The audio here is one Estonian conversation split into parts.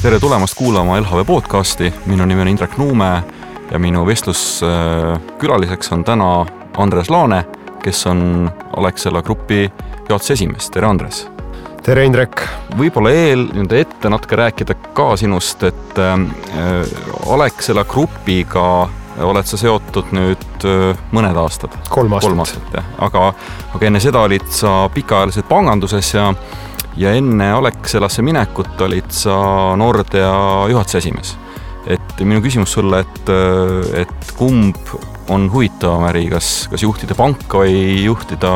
Tere tulemast kuulama LHV podcasti. Minu nimi on Indrek Nuume ja minu vestluskülaliseks on täna Andres Laane, kes on Alexela Grupi juhatuse esimees. Tere Andres! Tere Indrek! Võib-olla ette natuke rääkida ka sinust, et Alexela Grupiga oled sa seotud nüüd mõned aastad. 3 aastat. Aga enne seda olid sa pikaajaliselt panganduses ja enne Alexelasse minekut olid sa Nordea juhatuse esimees. Et minu küsimus sulle, et kumb on huvitavam äri, kas juhtida panka või juhtida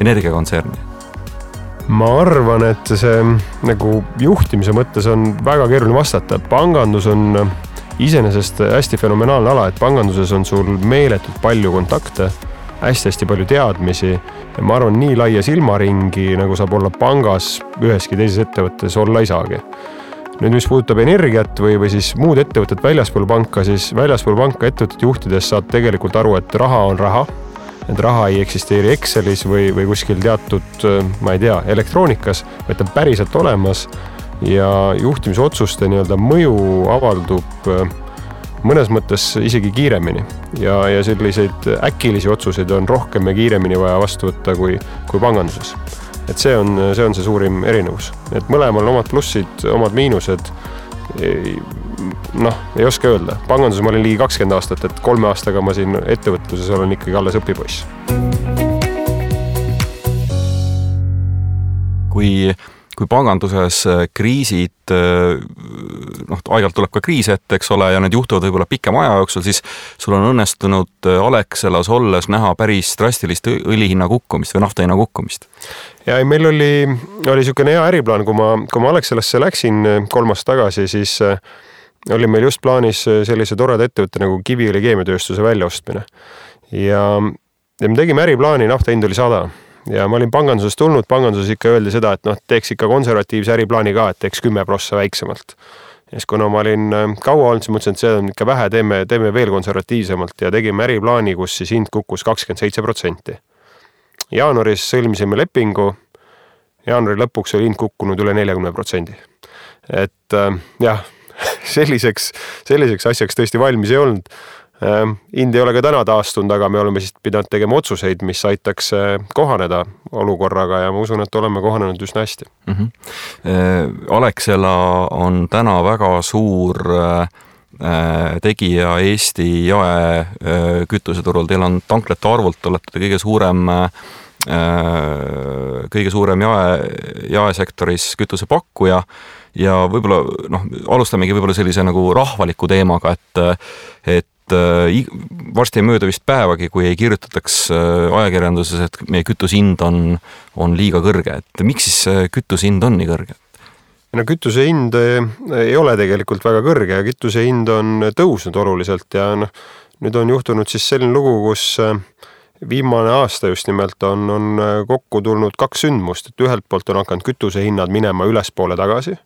energiakontserni? Ma arvan, et see nagu juhtimise mõttes on väga keeruline vastata. Pangandus on iseenesest hästi fenomenaalne ala, et panganduses on sul meeletult palju kontakte, hästi palju teadmisi ja ma arvan, nii laia silmaringi, nagu saab olla pangas üheski teises ettevõttes olla ei saagi. Nüüd, mis puudutab energiat või siis muud ettevõtted väljaspool panka, siis väljaspool panka ettevõtted juhtides saad tegelikult aru, et raha on raha, et raha ei eksisteeri Excelis või kuskil teatud, ma ei tea, elektroonikas, vaid ta päriselt olemas ja juhtimisotsuste mõju avaldub mõnes mõttes isegi kiiremini ja selliseid äkilisi otsuseid on rohkem ja kiiremini vaja vastu võtta kui panganduses. Et see on see suurim erinevus. Et mõlemal omad plussid, omad miinused, ei oska öelda. Panganduses ma olin ligi 20 aastat, et 3 aastaga ma siin ettevõtluses olen ikkagi alles õpipoiss. Kui panganduses kriisid, aeg-ajalt tuleb ka kriis ette, eks ole, ja need juhtuvad võib-olla pikema aja jooksul, siis sul on õnnestunud Alexelas olles näha päris drastilist õlihinna kukkumist või nafta hinna kukkumist. Ja meil oli niisugune hea äriplaan, kui ma Alexelasse läksin 3 aastat tagasi, siis oli meil just plaanis sellise toreda ettevõtte nagu Kiviõli keemiatööstuse väljaostmine. Ja me tegime äriplaani, nafta hind oli 100. Ja ma olin pangandusest tulnud, panganduses ikka öeldi seda, et teeks ikka konservatiivse äriplaani ka, et teeks 10% väiksemalt. Ja siis kuna ma olin kaua olnud, siis mõtlesin, et see on ikka vähe, teeme veel konservatiivsemalt ja tegime äriplaani, kus siis hind kukkus 27%. Jaanuaris sõlmisime lepingu, jaanuari lõpuks oli hind kukkunud üle 40%. Et jah, selliseks asjaks tõesti valmis ei olnud. Hind ei ole ka täna taastunud, aga me oleme siis pidanud tegema otsuseid, mis aitaks kohaneda olukorraga ja ma usun, et oleme kohanenud üsna hästi. Alexela on täna väga suur tegija Eesti jaekütuseturul. Teil on tanklete arvult, olete kõige suurem jaesektoris kütusepakkuja ja võib-olla, alustamegi võib-olla sellise nagu rahvaliku teemaga, et varsti ei mööda vist päevagi, kui ei kirjutataks ajakirjanduses, et meie kütusehind on liiga kõrge. Et miks siis kütusehind on nii kõrge? Kütusehind ei ole tegelikult väga kõrge ja kütusehind on tõusnud oluliselt ja nüüd on juhtunud siis selline lugu, kus viimane aasta just nimelt on kokku tulnud 2 sündmust, et ühelt poolt on hakanud kütusehinnad minema ülespoole tagasi,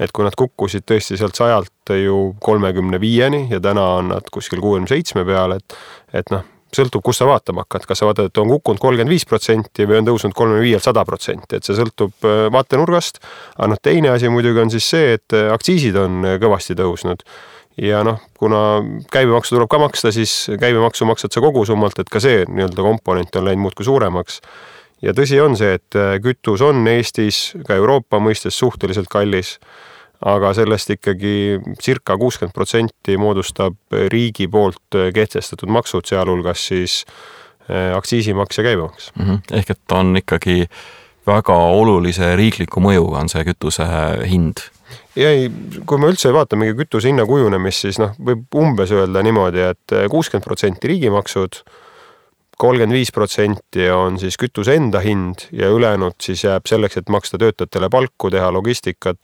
et kui nad kukkusid tõesti sealt 100 ju 35-ni ja täna on nad kuskil 67 peal, et sõltub, kus sa vaatama hakkad. Kas sa vaatad, et on kukkunud 35% või on tõusnud 35-100%, et see sõltub vaatenurgast. Aga teine asi muidugi on siis see, et aktsiisid on kõvasti tõusnud. Ja kuna käibemaksu tuleb ka maksta, siis käibemaksu maksad sa kogu summalt, et ka see komponent on läinud muudkui suuremaks. Ja tõsi on see, et kütus on Eestis, ka Euroopa mõistes suhteliselt kallis, aga sellest ikkagi circa 60% moodustab riigi poolt kehtestatud maksud, sealhulgas siis aktsiisimaks ja käibemaks. Ehk et on ikkagi väga olulise riikliku mõjuga on see kütuse hind. Ja kui me üldse vaatamegi kütuse hinna kujunemist, siis võib umbes öelda niimoodi, et 60% riigimaksud, 35% on siis kütuse enda hind ja ülejäänud siis jääb selleks, et maksta töötajatele palku, teha logistikat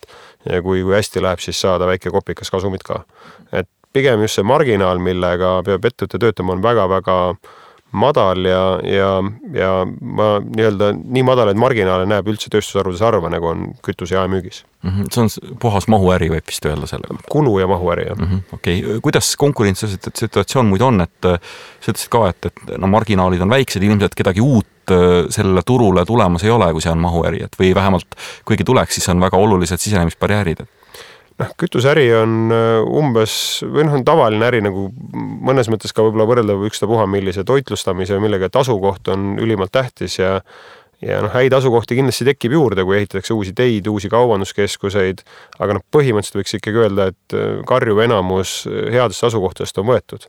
ja kui hästi läheb, siis saada väike kopikas kasumit ka. Et pigem just see marginaal, millega peab ettevõte töötama, on väga-väga madal ja ma nii-öelda nii madal, et marginaale näeb üldse tööstusharudes harva, nagu on kütuse jaemüügis. See on puhas mahuäri, võib vist öelda sellega. Kulu ja mahuäri, jah. Okei. Kuidas konkurentsisituatsioon muid on, et sa ütlesid ka, et no, marginaalid on väiksed, ilmselt kedagi uut sellele turule tulemas ei ole, kui see on mahuäri, et või vähemalt kuigi tuleks, siis on väga olulised sisenemisbarjäärid. Kütuseäri on umbes, või on tavaline äri nagu mõnes mõttes ka võib-olla võrreldav ükstapuha millise toitlustamise või millega, et asukoht on ülimalt tähtis ja häid asukohti kindlasti tekib juurde, kui ehitatakse uusi teid, uusi kaubanduskeskuseid, aga põhimõtteliselt võiks ikkagi öelda, et karjuv enamus headest asukohtadest on võetud.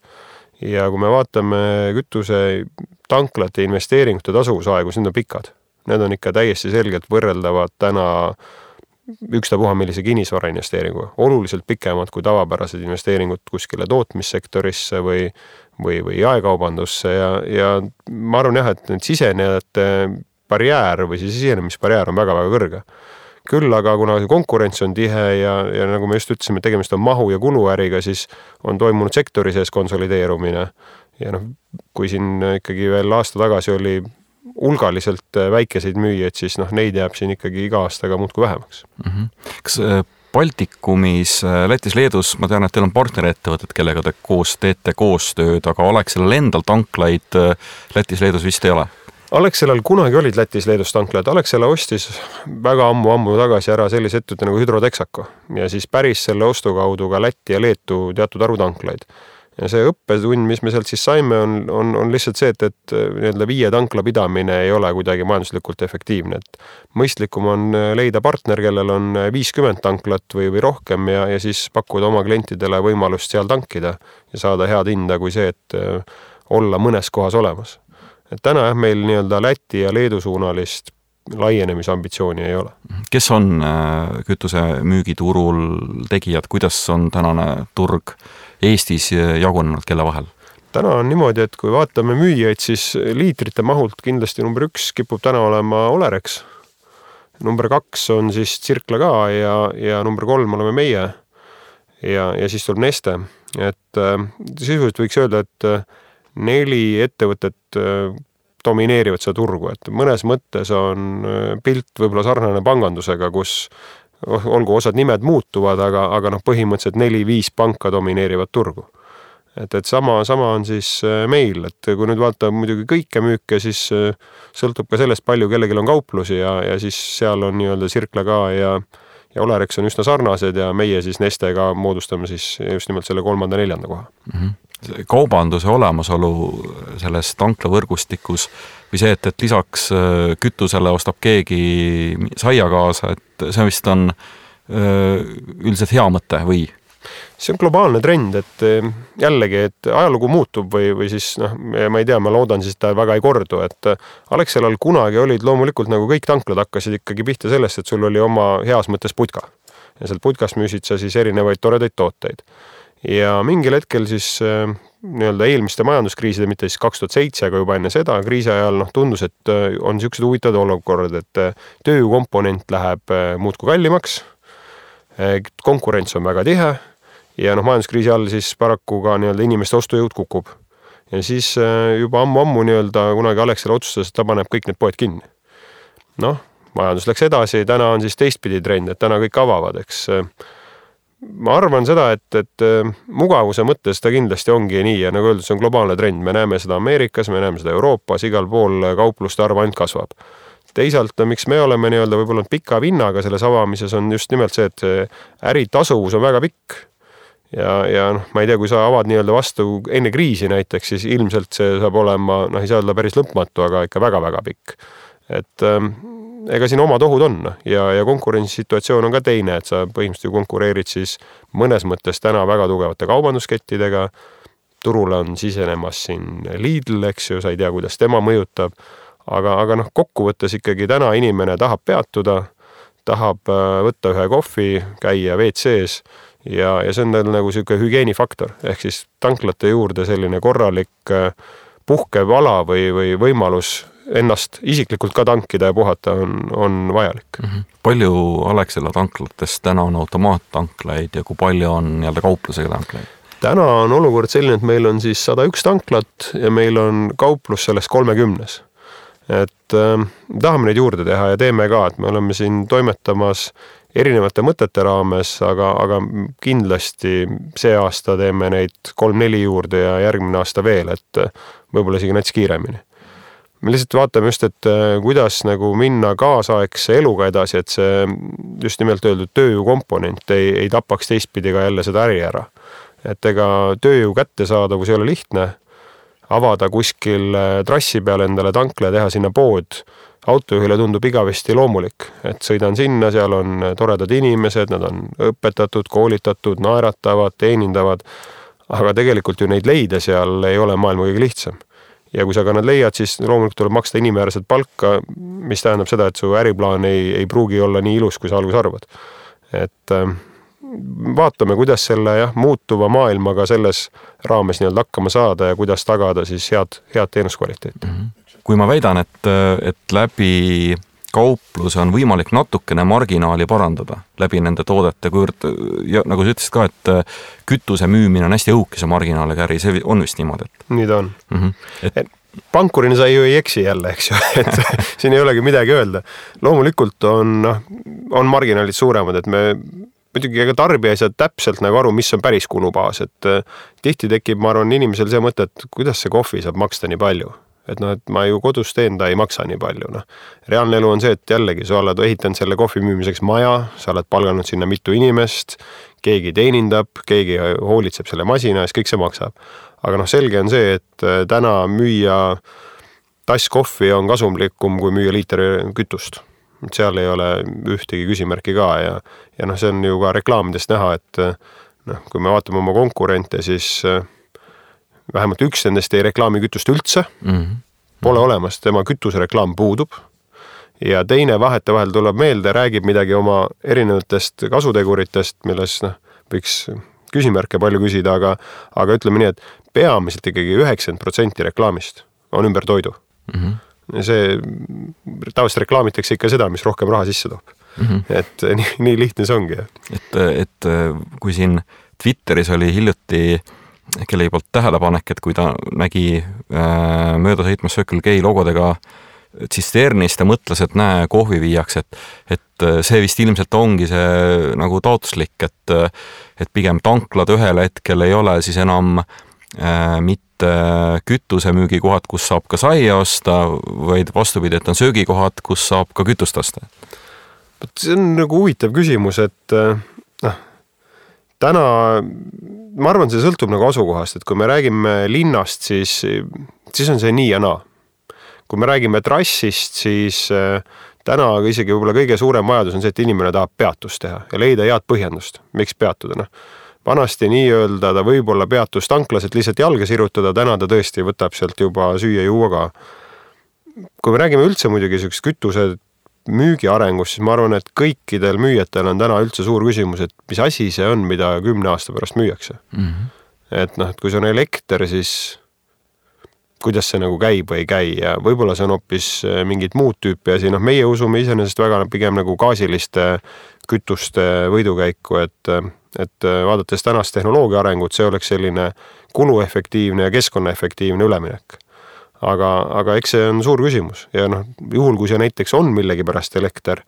Ja kui me vaatame kütuse tanklate investeeringute tasuvusaegu, siis need on pikad. Need on ikka täiesti selgelt võrreldavad täna ükstapuha millise kinnisvara investeeringu. Oluliselt pikemad kui tavapärased investeeringud kuskile tootmissektorisse või jaekaubandusse ja ma arvan jah, et need sisenejate barjäär või siis sisenemisbarjäär on väga-väga kõrge. Küll aga kuna konkurents on tihe ja nagu me just ütlesime, tegemist on mahu- ja kuluäriga, siis on toimunud sektori sees konsolideerumine. Ja kui siin ikkagi veel aasta tagasi oli hulgaliselt väikeseid müüjaid, siis neid jääb siin ikkagi iga aastaga muudkui vähemaks. Kas Baltikumis, Lätis, Leedus, ma tean, et teil on partnerettevõtted, kellega te koos teete koostööd, aga Alexelal endal tanklaid Lätis, Leedus vist ei ole? Alexelal kunagi olid Lätis, Leedus tanklad. Alexela ostis väga ammu tagasi ära sellise ettevõtte nagu Hydrotexaco ja siis päris selle ostu kaudu ka Läti ja Leetu teatud arvu tanklaid. Ja see õppetund, mis me sealt siis saime, on lihtsalt see, et 5 tankla pidamine ei ole kuidagi majanduslikult efektiivne. Et mõistlikum on leida partner, kellel on 50 tanklat või rohkem ja siis pakkuda oma klientidele võimalust seal tankida ja saada head hinda kui see, et olla mõnes kohas olemas. Et täna meil nii-öelda Läti ja Leedu suunalist laienemisambitsiooni ei ole. Kes on kütuse müügiturul tegijad, kuidas on tänane turg Eestis jagunenud kelle vahel? Täna on niimoodi, et kui vaatame müüjaid, siis liitrite mahult kindlasti number 1 kipub täna olema Olerex. Number 2 on siis Circle K ja number 3 oleme meie ja siis tuleb Neste. Et sisuliselt võiks öelda, et 4 ettevõtet domineerivad seda turgu, et mõnes mõttes on pilt võib-olla sarnane pangandusega, kus olgu osad nimed muutuvad, aga põhimõtteliselt 4-5 panka domineerivad turgu. Et sama on siis meil, et kui nüüd vaata muidugi kõike müüke, siis sõltub ka sellest palju kellelgi on kauplusi ja siis seal on nii-öelda Circle K ja Olerex on üsna sarnased ja meie siis Nestega moodustame siis just nimelt selle 3.-4. koha. Kaubanduse olemasolu selles tanklavõrgustikus või see, et lisaks kütusele ostab keegi saia kaasa, et see vist on üldiselt hea mõte või? See on globaalne trend, et jällegi, et ajalugu muutub või siis, ma ei tea, ma loodan siis, et ta väga ei kordu, et Alexelal kunagi olid loomulikult nagu kõik tanklad hakkasid ikkagi pihta sellest, et sul oli oma heas mõttes putka ja sealt putkast müüsid sa siis erinevaid toredaid tooteid. Ja mingil hetkel siis nii-öelda eelmiste majanduskriiside, mitte siis 2007, aga juba enne seda kriisi ajal tundus, et on niisugused huvitavad olukorrad, et töökomponent läheb muudkui kallimaks, konkurents on väga tihe ja majanduskriisi all siis paraku ka nii-öelda inimeste ostujõud kukub. Ja siis juba ammu nii-öelda kunagi Alexela otsustas, et ta paneb kõik need poed kinni. Majandus läks edasi, täna on siis teistpidi trend, et täna kõik avavad, eks. Ma arvan seda, et mugavuse mõttes ta kindlasti ongi nii ja nagu öeldud, see on globaalne trend. Me näeme seda Ameerikas, me näeme seda Euroopas, igal pool kaupluste arv ainult kasvab. Teisalt, miks me oleme nii-öelda võib-olla pika vinnaga selles avamises on just nimelt see, et äri tasuvus on väga pikk. Ja ma ei tea, kui sa avad nii-öelda vastu enne kriisi näiteks, siis ilmselt see saab olema, ei saa olla päris lõpmatu, aga ikka väga-väga pikk. Et ega siin omad ohud on ja konkurentsisituatsioon on ka teine, et sa põhimõtteliselt konkureerid siis mõnes mõttes täna väga tugevate kaubanduskettidega. Turule on sisenemas siin Lidl, eks ju, sa ei tea, kuidas tema mõjutab, aga kokkuvõttes ikkagi täna inimene tahab peatuda, tahab võtta ühe kohvi, käia WC-s ja see on nagu selline hügieenifaktor, ehk siis tanklate juurde selline korralik puhkev ala või võimalus ennast isiklikult ka tankida ja puhata on vajalik. Palju Alexela tanklatest täna on automaattanklaid ja kui palju on nii-öelda kauplusega tanklaid? täna on olukord selline, et meil on siis 101 tanklat ja meil on kauplus sellest 30. Et tahame neid juurde teha ja teeme ka, et me oleme siin toimetamas erinevate mõtete raames, aga kindlasti see aasta teeme neid 3-4 juurde ja järgmine aasta veel, et võib-olla isegi näiteks kiiremini. Me lihtsalt vaatame just, et kuidas nagu minna kaasaegse eluga edasi, et see just nimelt öeldud tööjõu komponent ei tapaks teistpidi ka jälle seda äri ära. Et ega tööjõu kättesaadavus ei ole lihtne, avada kuskil trassi peal endale tankla ja teha sinna pood. Autojuhile tundub igavesti loomulik, et sõidan sinna, seal on toredad inimesed, nad on õpetatud, koolitatud, naeratavad, teenindavad, aga tegelikult ju neid leida seal ei ole maailma kõige lihtsam. Ja kui sa ka nad leiad, siis loomulikult tuleb maksta inimväärset palka, mis tähendab seda, et su äriplaan ei pruugi olla nii ilus, kui sa alguses arvad. Et vaatame, kuidas selle muutuva maailmaga selles raames nii-öelda hakkama saada ja kuidas tagada siis head teenuskvaliteeti. Kui ma väidan, et läbi kaupluse on võimalik natukene marginaali parandada läbi nende toodete, ja nagu sa ütlesid ka, et kütuse müümine on hästi õhukese marginaaliga äri, see on vist niimoodi. Nii ta on. Pankurina sa ju ei eksi jälle, eks ju, et siin ei olegi midagi öelda. Loomulikult on marginaalid suuremad, et me muidugi ega tarbija ei saa täpselt nagu aru, mis on päris kulubaas, et tihti tekib, ma arvan, inimesel see mõte, et kuidas see kohvi saab maksta nii palju. Et ma ju kodus teen, ta ei maksa nii palju. Reaalne elu on see, et jällegi sa oled ehitanud selle kohvi müümiseks maja, sa oled palganud sinna mitu inimest, keegi teenindab, keegi hoolitseb selle masina, siis kõik see maksab. Aga selge on see, et täna müüa tass kohvi on kasumlikum, kui müüa liiter kütust. Seal ei ole ühtegi küsimärki ka ja see on ju ka reklaamidest näha, et kui me vaatame oma konkurente, siis vähemalt üks nendest ei reklaami kütust üldse, pole olemas, tema kütusereklaam puudub ja teine vahetevahel tuleb meelde, räägib midagi oma erinevatest kasuteguritest, milles võiks küsimärke palju küsida, aga ütleme nii, et peamiselt ikkagi 90% reklaamist on ümber toidu. See tavaliselt reklaamitakse ikka seda, mis rohkem raha sisse toob. Et nii lihtne see ongi. Et kui siin Twitteris oli hiljuti kellegi poolt tähelepanek, et kui ta nägi mööda sõitmas Circle K logodega tsisternist ja mõtles, et näe, kohvi viiaks, et see vist ilmselt ongi see nagu taotluslik, et pigem tanklad ühel hetkel ei ole siis enam mitte kütusemüügikohad, kus saab ka saia osta, vaid vastupidi, et on söögikohad, kus saab ka kütust osta. See on nagu huvitav küsimus, et täna, ma arvan, see sõltub nagu asukohast, et kui me räägime linnast, siis on see nii ja naa. Kui me räägime trassist, siis täna isegi võib-olla kõige suurem vajadus on see, et inimene tahab peatust teha ja leida head põhjendust, miks peatuda. Vanasti nii öelda, ta võib-olla peatus tanklas, et lihtsalt jalga sirutada, täna ta tõesti võtab sealt juba süüa juua ka. Kui me räägime üldse muidugi kütuse müügi arengust, siis ma arvan, et kõikidel müüjatel on täna üldse suur küsimus, et mis asi see on, mida 10 aasta pärast müüakse. Et kui see on elekter, siis kuidas see nagu käib või ei käi ja võib-olla see on hoopis mingid muud tüüpi asi. Meie usume iseenesest väga pigem nagu gaasiliste kütuste võidukäiku, et vaadates tänast tehnoloogia arengut, see oleks selline kuluefektiivne ja keskkonnaefektiivne üleminek. Aga eks see on suur küsimus ja juhul, kui see näiteks on millegi pärast elekter,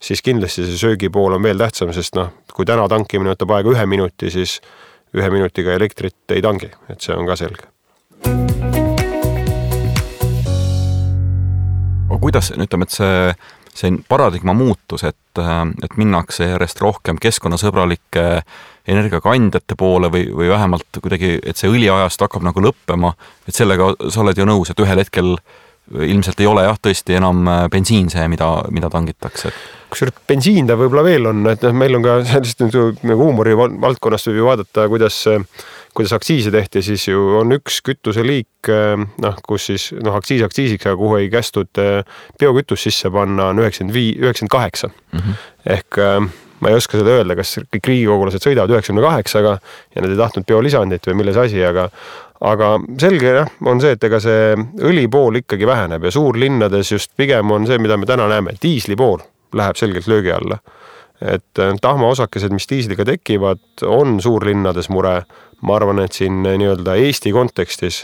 siis kindlasti see söögipool on veel tähtsam, sest kui täna tankimine võtab aega 1 minuti, siis 1 minutiga elektrit ei tangi, et see on ka selge. Kuidas, ütleme, et see paradigma muutus, et minnakse järjest rohkem keskkonnasõbralike energiakandjate poole või vähemalt kuidagi, et see õliajast hakkab nagu lõppema, et sellega sa oled ju nõus, et ühel hetkel ilmselt ei ole tõesti enam bensiin see, mida tangitakse. Kusjuures bensiin ta võib-olla veel on, et meil on ka sellist nagu huumori valdkonnast võib ju vaadata, kuidas aktsiise tehti, siis ju on üks kütuseliik, kus siis aktsiisiks, aga kuhu ei kästud biokütus sisse panna, on 98. Ehk ma ei oska seda öelda, kas kõik riigikogulased sõidavad 98-ga ja nad ei tahtnud biolisandit või milles asi, aga selge on see, et ega see õli pool ikkagi väheneb ja suurlinnades just pigem on see, mida me täna näeme, diisli pool läheb selgelt löögi alla. et tahmaosakesed, mis diisliga tekivad, on suurlinnades mure. Ma arvan, et siin nii-öelda Eesti kontekstis,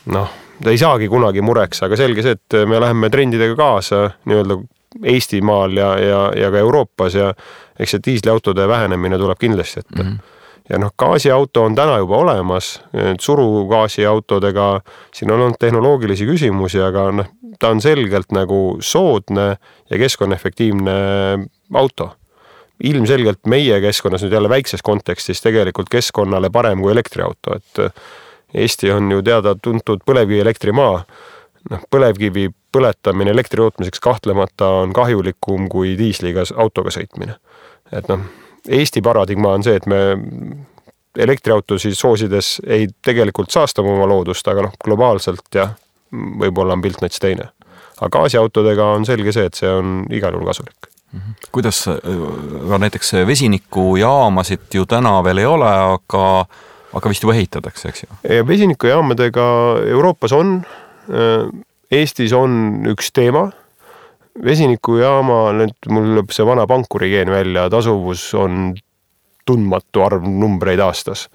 ta ei saagi kunagi mureks, aga selge see, et me läheme trendidega kaasa nii-öelda Eestimaal ja ka Euroopas ja eks see diisliautode vähenemine tuleb kindlasti ette. Ja gaasiauto on täna juba olemas, surugaasiautodega siin on olnud tehnoloogilisi küsimusi, aga ta on selgelt nagu soodne ja keskkonnaefektiivne auto. Ilmselgelt meie keskkonnas nüüd jälle väikses kontekstis tegelikult keskkonnale parem kui elektriauto, et Eesti on ju teada tuntud põlevkivi elektrimaa. Põlevkivi põletamine elektri tootmiseks kahtlemata on kahjulikum kui diisliga autoga sõitmine. Et Eesti paradigma on see, et me elektriautosid soosides ei tegelikult saastama oma loodust, aga globaalselt ja võib-olla on pilt näiteks teine. Aga gaasiautodega on selge see, et see on igal juhul kasulik. Kuidas näiteks vesinikujaamasid ju täna veel ei ole, aga vist juba ehitatakse, eks ju? Vesinikujaamadega Euroopas on, Eestis on üks teema. Vesinikujaama, mul lööb see vana pankurigeen välja, tasuvus on tundmatu arv numbreid aastas.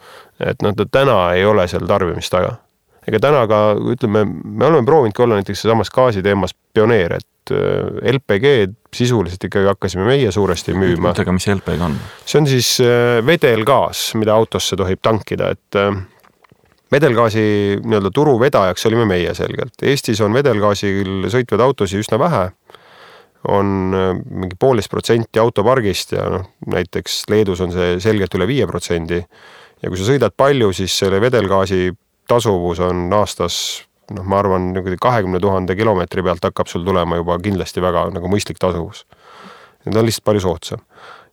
Et täna ei ole seal tarbimist taga. Ega täna ka, ütleme, me oleme proovinud olla näiteks samas gaasi teemas pioneer, et LPG sisuliselt ikkagi hakkasime meie suuresti müüma. Aga mis LPG on? See on siis vedelgaas, mida autosse tohib tankida, et vedelgaasi nii-öelda turu vedajaks olime meie selgelt. Eestis on vedelgaasil sõitvad autosi üsna vähe, on mingi 1,5% autopargist ja näiteks Leedus on see selgelt üle 5%. Ja kui sa sõidad palju, siis selle vedelgaasi tasuvus on aastas, ma arvan, 20 000 kilomeetri pealt hakkab sul tulema juba kindlasti väga nagu mõistlik tasuvus. Need on lihtsalt palju soodsam.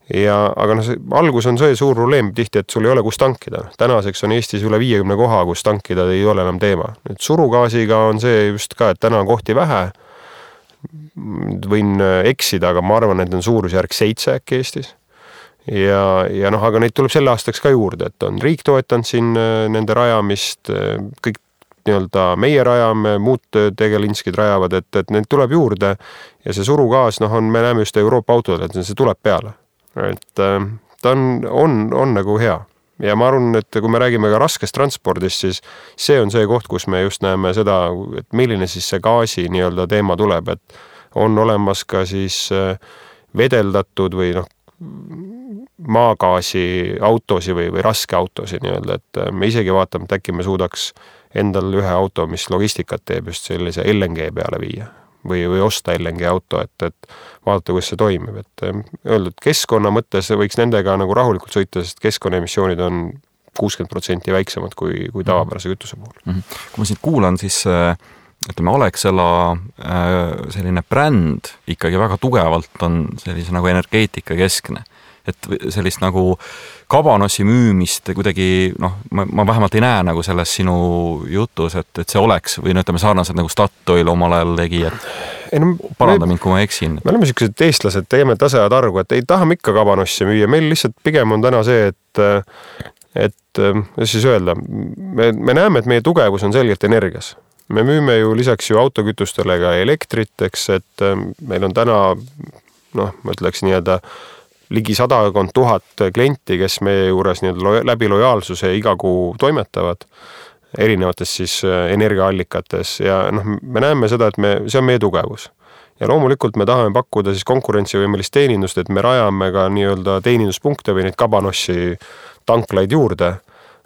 Aga algus on see suur probleem tihti, et sul ei ole kus tankida. Tänaseks on Eestis üle 50 koha, kus tankida ei ole enam teema. Nüüd surugaasiga on see just ka, et täna on kohti vähe. Võin eksida, aga ma arvan, et on suurusjärk 7 äkki Eestis. Aga neid tuleb selle aastaks ka juurde, et on riik toetanud siin nende rajamist, kõik nii-öelda meie rajame, muud tegelinskid rajavad, et neid tuleb juurde ja see surugaas, me näeme just Euroopa autodel, et see tuleb peale. Et ta on nagu hea. Ja ma arvan, et kui me räägime ka raskest transpordist, siis see on see koht, kus me just näeme seda, et milline siis see gaasi nii-öelda teema tuleb, et on olemas ka siis vedeldatud või maagaasi autosi või raske autosi nii-öelda, et me isegi vaatame, et äkki me suudaks endal ühe auto, mis logistikat teeb just sellise LNG peale viia või osta LNG auto, et vaadata, kuidas see toimib. Et öeldud, keskkonna mõttes võiks nendega nagu rahulikult sõita, sest keskkonnaemissioonid on 60% väiksemad kui tavapärase kütuse puhul. Kui ma siin kuulan, siis ütleme, Alexela selline bränd ikkagi väga tugevalt on sellise nagu energeetika keskne. Et sellist nagu kabanossi müümist kuidagi, ma vähemalt ei näe nagu selles sinu jutus, et see oleks või ütleme sarnaselt nagu Statoil omal ajal tegi, et paranda mind, kui ma eksin. Me oleme sellised eestlased, teeme tasajad argu, et ei tahame ikka kabanossi müüa. Meil lihtsalt pigem on täna see, et siis öelda, me näeme, et meie tugevus on selgelt energias. Me müüme ju lisaks ju autokütustele ka elektrit, eks, et meil on täna, ma ütleks nii-öelda ligi 100 000 klienti, kes meie juures läbi lojaalsuse iga kuu toimetavad erinevates siis energiaallikates ja me näeme seda, et see on meie tugevus. Ja loomulikult me tahame pakkuda siis konkurentsivõimelist teenindust, et me rajame ka nii-öelda teeninduspunkte või neid kabanossi tanklaid juurde.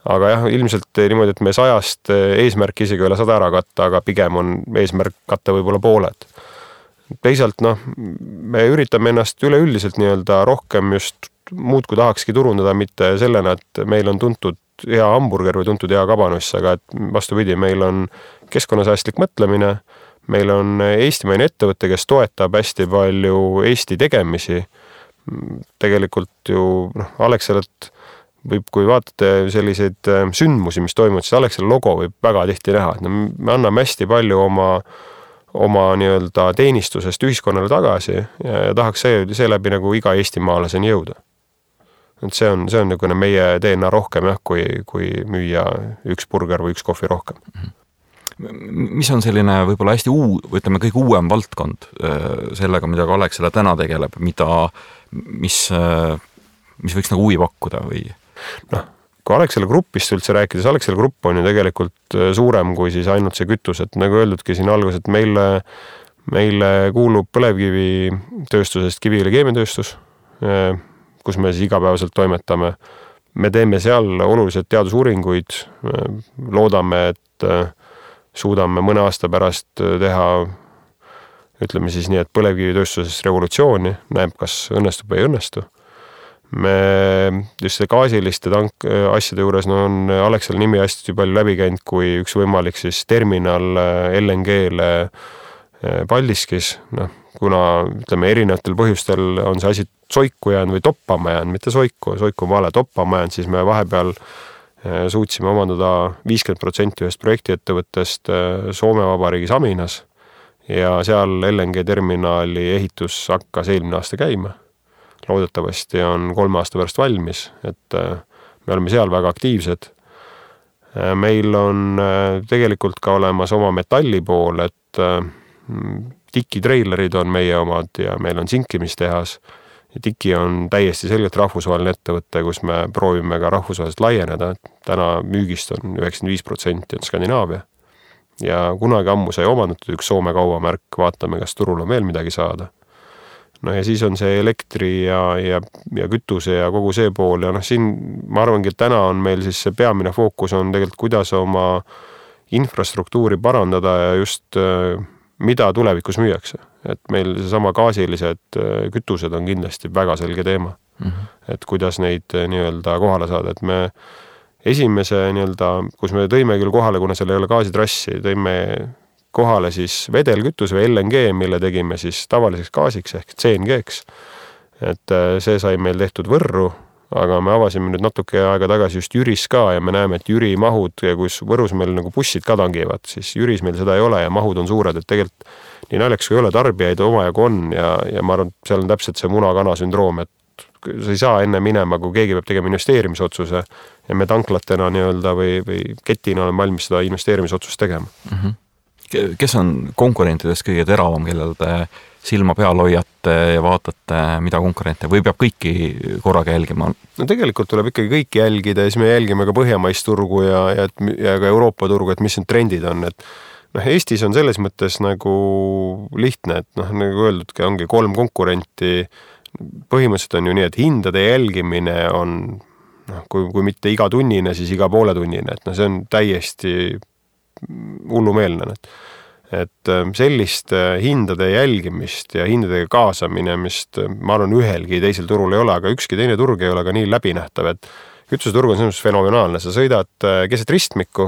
Aga jah, ilmselt niimoodi, et me 100 eesmärk isegi üle 100 ära katta, aga pigem on eesmärk katta võib-olla pooled. Teisalt, me üritame ennast üleüldiselt nii-öelda rohkem just muud kui tahakski turundada, mitte sellena, et meil on tuntud hea hamburger või tuntud hea kabanoss, aga et vastupidi, meil on keskkonnasäästlik mõtlemine, meil on eestimaine ettevõte, kes toetab hästi palju Eesti tegemisi. Tegelikult ju Alexelat võib, kui vaatate selliseid sündmusi, mis toimuvad, siis Alexela logo võib väga tihti näha. Me anname hästi palju oma nii-öelda teenistusest ühiskonnale tagasi ja tahaks seeläbi nagu iga eestimaalaseni jõuda. Et see on nagu meie DNA rohkem, kui müüa üks burger või üks kohvi rohkem. mis on selline võib-olla hästi ütleme kõige uuem valdkond sellega, mida ka Alexela täna tegeleb, mis võiks nagu huvi pakkuda või? Kui Alexela Grupist üldse rääkides, Alexela Grupp on ju tegelikult suurem kui siis ainult see kütus, et nagu öeldudki siin alguses, et meile kuulub põlevkivitööstusest Kiviõli keemiatööstus, kus me siis igapäevaselt toimetame. Me teeme seal olulised teadusuuringuid, loodame, et suudame mõne aasta pärast teha, ütleme siis nii, et põlevkivitööstuses revolutsiooni, näeb, kas õnnestub või ei õnnestu. Me just gaasiliste asjade juures on Alexela nimi hästi palju läbi käinud, kui üks võimalik siis terminal LNG-le Paldiskis, kuna ütleme erinevatel põhjustel on see asi soiku jäänud või toppama jäänud, mitte soiku on vale, toppama jäänud, siis me vahepeal suutsime omandada 50% ühest projektiettevõttest Soome Vabariigis Aminas ja seal LNG terminali ehitus hakkas eelmine aasta käima. Loodetavasti on 3 aasta pärast valmis, et me oleme seal väga aktiivsed. Meil on tegelikult ka olemas oma metalli pool, et tikitreilerid on meie omad ja meil on sinkimistehas. Ja tiki on täiesti selgelt rahvusvaheline ettevõte, kus me proovime ka rahvusvaheliselt laieneda. Täna müügist on 95% on Skandinaavia. Ja kunagi ammu sai omandatud üks Soome kaubamärk, vaatame, kas turul on veel midagi saada. No ja siis on see elektri ja kütuse ja kogu see pool ja siin ma arvangi, et täna on meil siis see peamine fookus on tegelikult, kuidas oma infrastruktuuri parandada ja just mida tulevikus müüakse. Et meil seesama gaasilised kütused on kindlasti väga selge teema. Et kuidas neid nii-öelda kohale saada, et me esimese nii-öelda, kus me tõime küll kohale, kuna seal ei ole gaasitrassi, tõime kohale siis vedelkütus või LNG, mille tegime siis tavaliseks gaasiks ehk CNG-ks. Et see sai meil tehtud Võrru, aga me avasime nüüd natuke aega tagasi just Jüris ka ja me näeme, et Jüri mahud, kus Võrus meil nagu bussid ka tangivad, siis Jüris meil seda ei ole ja mahud on suured, et tegelikult nii naljaks kui ei ole, tarbijaid omajagu on ja ma arvan, et seal on täpselt see muna-kana sündroom, et sa ei saa enne minema, kui keegi peab tegema investeerimisotsuse ja me tanklatena nii-öelda või ketina oleme valmis seda investeerimisotsust tegema. Kes on konkurentidest kõige teravam, kellel te silma peal hoiate ja vaatate, mida konkurente või peab kõiki korraga jälgima? No tegelikult tuleb ikkagi kõiki jälgida ja siis me jälgime ka põhjamaist turgu ja ka Euroopa turgu, et mis need trendid on. Et Eestis on selles mõttes nagu lihtne, et nagu öeldudki, ongi 3 konkurenti. Põhimõtteliselt on ju nii, et hindade jälgimine on, kui mitte iga tunnine, siis iga poole tunnine. Et see on täiesti hullumeelne. Et sellist hindade jälgimist ja hindadega kaasamine, mis ma arvan ühelgi teisel turul ei ole, aga ükski teine turg ei ole ka nii läbinähtav, et kütuseturg on selles fenomenaalne. Sa sõidad keset ristmikku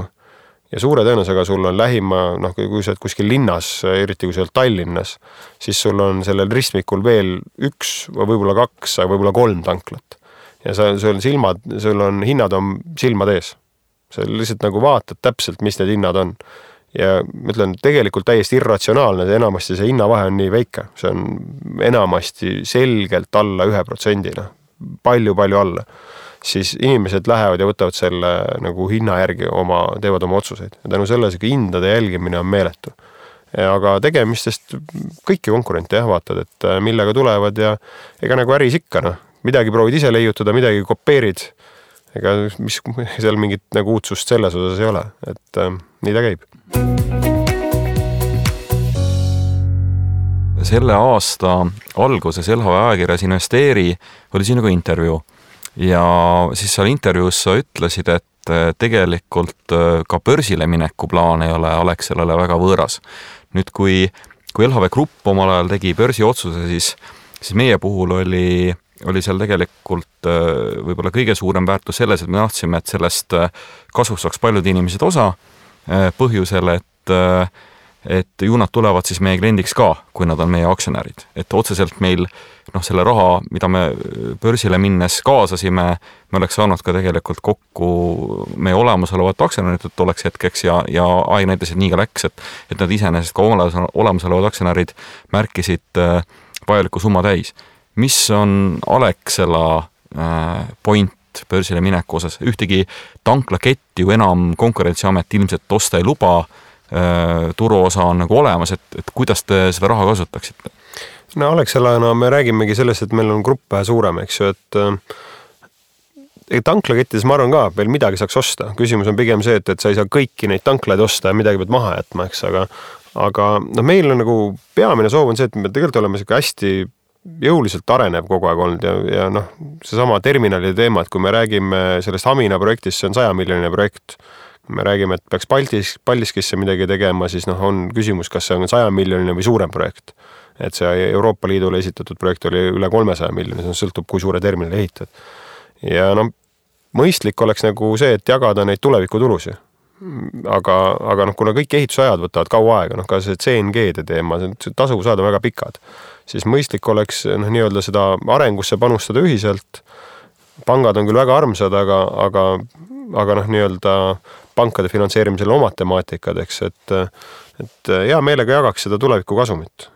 ja suure tõenäosusega sul on lähima, kui sa oled kuskil linnas, eriti kui sa oled Tallinnas, siis sul on sellel ristmikul veel 1 või võib-olla 2, aga võib-olla 3 tanklat. Ja sul on hinnad on silmad ees. Sa lihtsalt nagu vaatad täpselt, mis need hinnad on. Ja ma ütlen, tegelikult täiesti irratsionaalne, enamasti see hinnavahe on nii väike. See on enamasti selgelt alla 1%, palju alla. Siis inimesed lähevad ja võtavad selle nagu hinna järgi teevad oma otsuseid. Ja tänu selles hindade jälgimine on meeletu. Aga tegemistest kõiki konkurente vaatad, et millega tulevad ja ega nagu äris ikka. Midagi proovid ise leiutada, midagi kopeerid. Ega mis seal mingit nagu uudsust selles osas ei ole, et nii ta käib. Selle aasta alguses LHV ajakirjas Investeeri oli sinuga intervjuu ja siis seal intervjuus sa ütlesid, et tegelikult ka börsile mineku plaan ei ole Alexelale väga võõras. Nüüd, kui LHV Grupp omal ajal tegi börsi otsuse, siis meie puhul oli seal tegelikult võib-olla kõige suurem väärtus selles, et me tahtsime, et sellest kasvust saaks paljud inimesed osa põhjusel, et ju nad tulevad siis meie kliendiks ka, kui nad on meie aktsionärid. Et otseselt meil selle raha, mida me börsile minnes kaasasime, me oleks saanud ka tegelikult kokku meie olemasolevat aktsionärid, et oleks hetkeks ja aeg näitas, et nii ka läks, et nad iseenesest ka olemasolevad aktsionärid märkisid vajaliku summa täis. Mis on Alexela point börsile mineku osas? Ühtegi tanklaketti ju enam Konkurentsiamet ilmselt osta ei luba. turuosa on nagu olemas, et kuidas te seda raha kasutaksite? No Alexelana me räägimegi sellest, et meil on grupp vähe suurem, eks ju, et tanklakettides ma arvan ka veel midagi saaks osta. Küsimus on pigem see, et sa ei saa kõiki neid tanklaid osta ja midagi pead maha jätma, eks, aga no meil on nagu peamine soov on see, et me tegelikult oleme hästi jõuliselt arenev kogu aeg olnud ja noh, seesama terminali teema, et kui me räägime sellest Hamina projektist, see on 100 miljoni projekt. Kui me räägime, et peaks Paldiskisse midagi tegema, siis noh, on küsimus, kas see on 100 miljoni või suurem projekt. Et see Euroopa Liidule esitatud projekt oli üle 300 miljoni, see sõltub, kui suure terminali ehitad. Ja noh, mõistlik oleks nagu see, et jagada neid tulevikutulusi. Aga noh, kuna kõik ehitusajad võtavad kaua aega, noh ka see CNG-de teema, tasuvusajad on väga pikad, siis mõistlik oleks noh, nii-öelda seda arengusse panustada ühiselt. Pangad on küll väga armsad, aga noh, nii-öelda pankade finantseerimisel omad temaatikad, eks, et hea meelega jagaks seda tuleviku kasumit.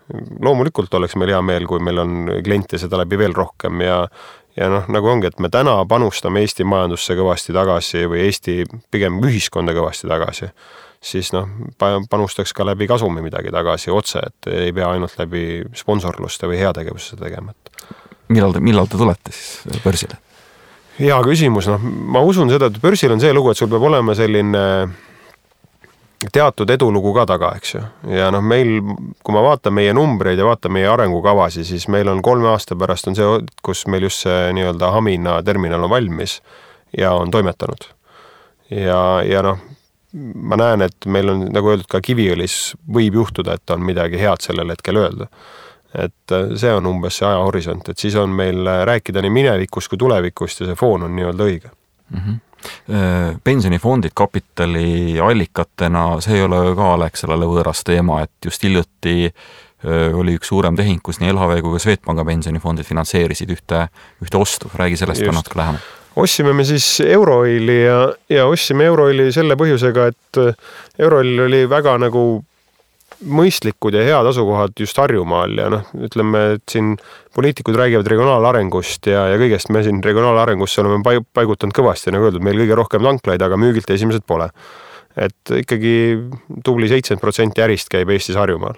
Loomulikult oleks meil hea meel, kui meil on kliente seda läbi veel rohkem ja noh, nagu ongi, et me täna panustame Eesti majandusse kõvasti tagasi või Eesti pigem ühiskonda kõvasti tagasi, siis noh, panustaks ka läbi kasumi midagi tagasi otse, et ei pea ainult läbi sponsorluste või heategevusse tegema. Millal te tulete siis börsile? Hea küsimus, noh, ma usun seda, et börsil on see lugu, et sul peab olema selline teatud edulugu ka taga, eks ju. Ja noh, meil, kui ma vaatan meie numbreid ja vaatan meie arengukavasi, siis meil on 3 aasta pärast on see, kus meil just see nii-öelda Hamina terminal on valmis ja on toimetanud. Ja noh, ma näen, et meil on, nagu öeldud, ka Kiviõlis võib juhtuda, et on midagi head sellel hetkel öelda. Et see on umbes see ajahorisont, et siis on meil rääkida nii minevikust kui tulevikust ja see foon on nii-öelda õige. Pensionifondid kapitali allikatena, see ei ole ka Alexelale võõras teema, et just hiljuti oli üks suurem tehing, kus nii LHV kui ka Swedbanka pensionifondid finantseerisid ühte ostu. Räägi sellest ka natuke lähemalt. Ostsime me siis Euroili ja ostsime Euroili selle põhjusega, et Euroil oli väga nagu mõistlikud ja head asukohad just Harjumaal ja noh, ütleme, et siin poliitikud räägivad regionaalarengust ja kõigest me siin regionaalarengusse oleme paigutanud kõvasti, nagu öeldud, meil kõige rohkem tanklaid, aga müügilt esimesed pole. Et ikkagi tubli 70% ärist käib Eestis Harjumaal.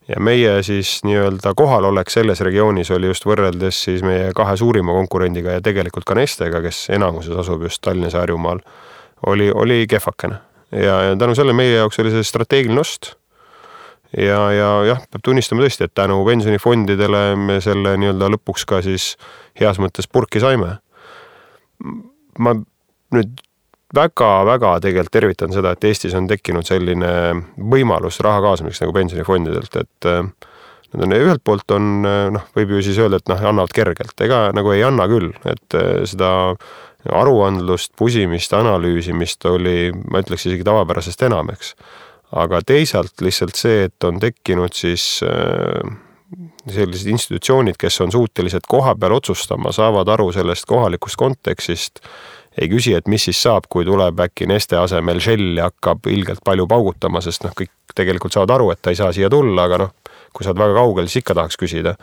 Ja meie siis nii-öelda kohalolek selles regioonis oli just võrreldes siis meie 2 suurima konkurendiga ja tegelikult ka Nestega, kes enamuses asub just Tallinnas ja Harjumaal, oli kehvakene. Ja tänu selle meie jaoks oli see strateegiline ost. Ja peab tunnistama tõesti, et tänu pensionifondidele me selle nii-öelda lõpuks ka siis heas mõttes purki saime. Ma nüüd väga tegelikult tervitan seda, et Eestis on tekkinud selline võimalus raha kaasamiseks nagu pensionifondidelt, et ühelt poolt on, noh, võib ju siis öelda, et noh, annavad kergelt, ega nagu ei anna küll, et seda aruandlust, pusimist, analüüsimist oli, ma ütleks isegi tavapärasest enam, eks. Aga teisalt lihtsalt see, et on tekkinud siis sellised institutsioonid, kes on suutelised koha peal otsustama, saavad aru sellest kohalikust kontekstist, ei küsi, et mis siis saab, kui tuleb äkki Neste asemel Shell ja hakkab ilgelt palju paugutama, sest noh, kõik tegelikult saavad aru, et ta ei saa siia tulla, aga noh, kui saad väga kaugel, siis ikka tahaks küsida,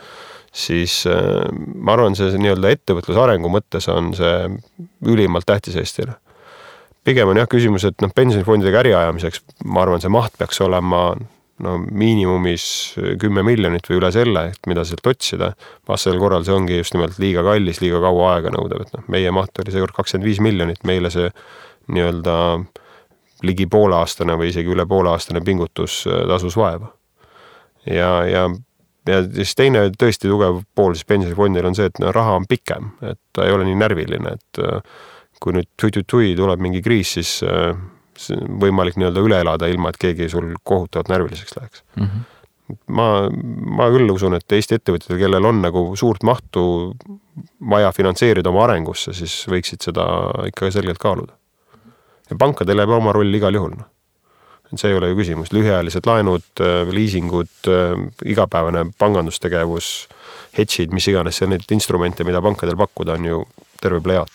siis ma arvan, see nii-öelda ettevõtluse arengu mõttes on see ülimalt tähtis Eestile. Pigem on jah küsimus, et noh, pensionifondidega äri ajamiseks, ma arvan, see maht peaks olema no, miinimumis 10 miljonit või üle selle, et mida sealt otsida. Vastasel korral see ongi just nimelt liiga kallis, liiga kaua aega nõudev. Et noh, meie maht oli seekord 25 miljonit, meile see nii-öelda ligi pooleaastane või isegi üle pooleaastane pingutus tasus vaeva. Ja siis teine tõesti tugev pool siis pensionifondil on see, et no, raha on pikem, et ta ei ole nii närviline, et kui nüüd tui tuleb mingi kriis, siis võimalik nii-öelda üle elada ilma, et keegi sul kohutavalt närviliseks läheks. Ma küll usun, et Eesti ettevõtjad, kellel on nagu suurt mahtu vaja finantseerida oma arengusse, siis võiksid seda ikka selgelt kaaluda. Ja pankadel jääb oma roll igal juhul. No. See ei ole ju küsimus. Lühiajalised laenud, liisingud, igapäevane pangandustegevus, hedžid, mis iganes, need instrumente, mida pankadel pakkuda, on ju terve plejaat.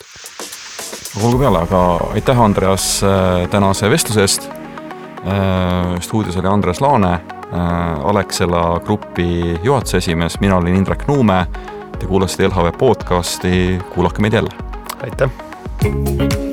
Olgu peale, aga aitäh Andreas tänase vestluse eest. Stuudios oli Andreas Laane, Alexela grupi juhatuse esimees, mina olin Indrek Nuume. Te kuulasite LHV podcasti, kuulake meid jälle. Aitäh!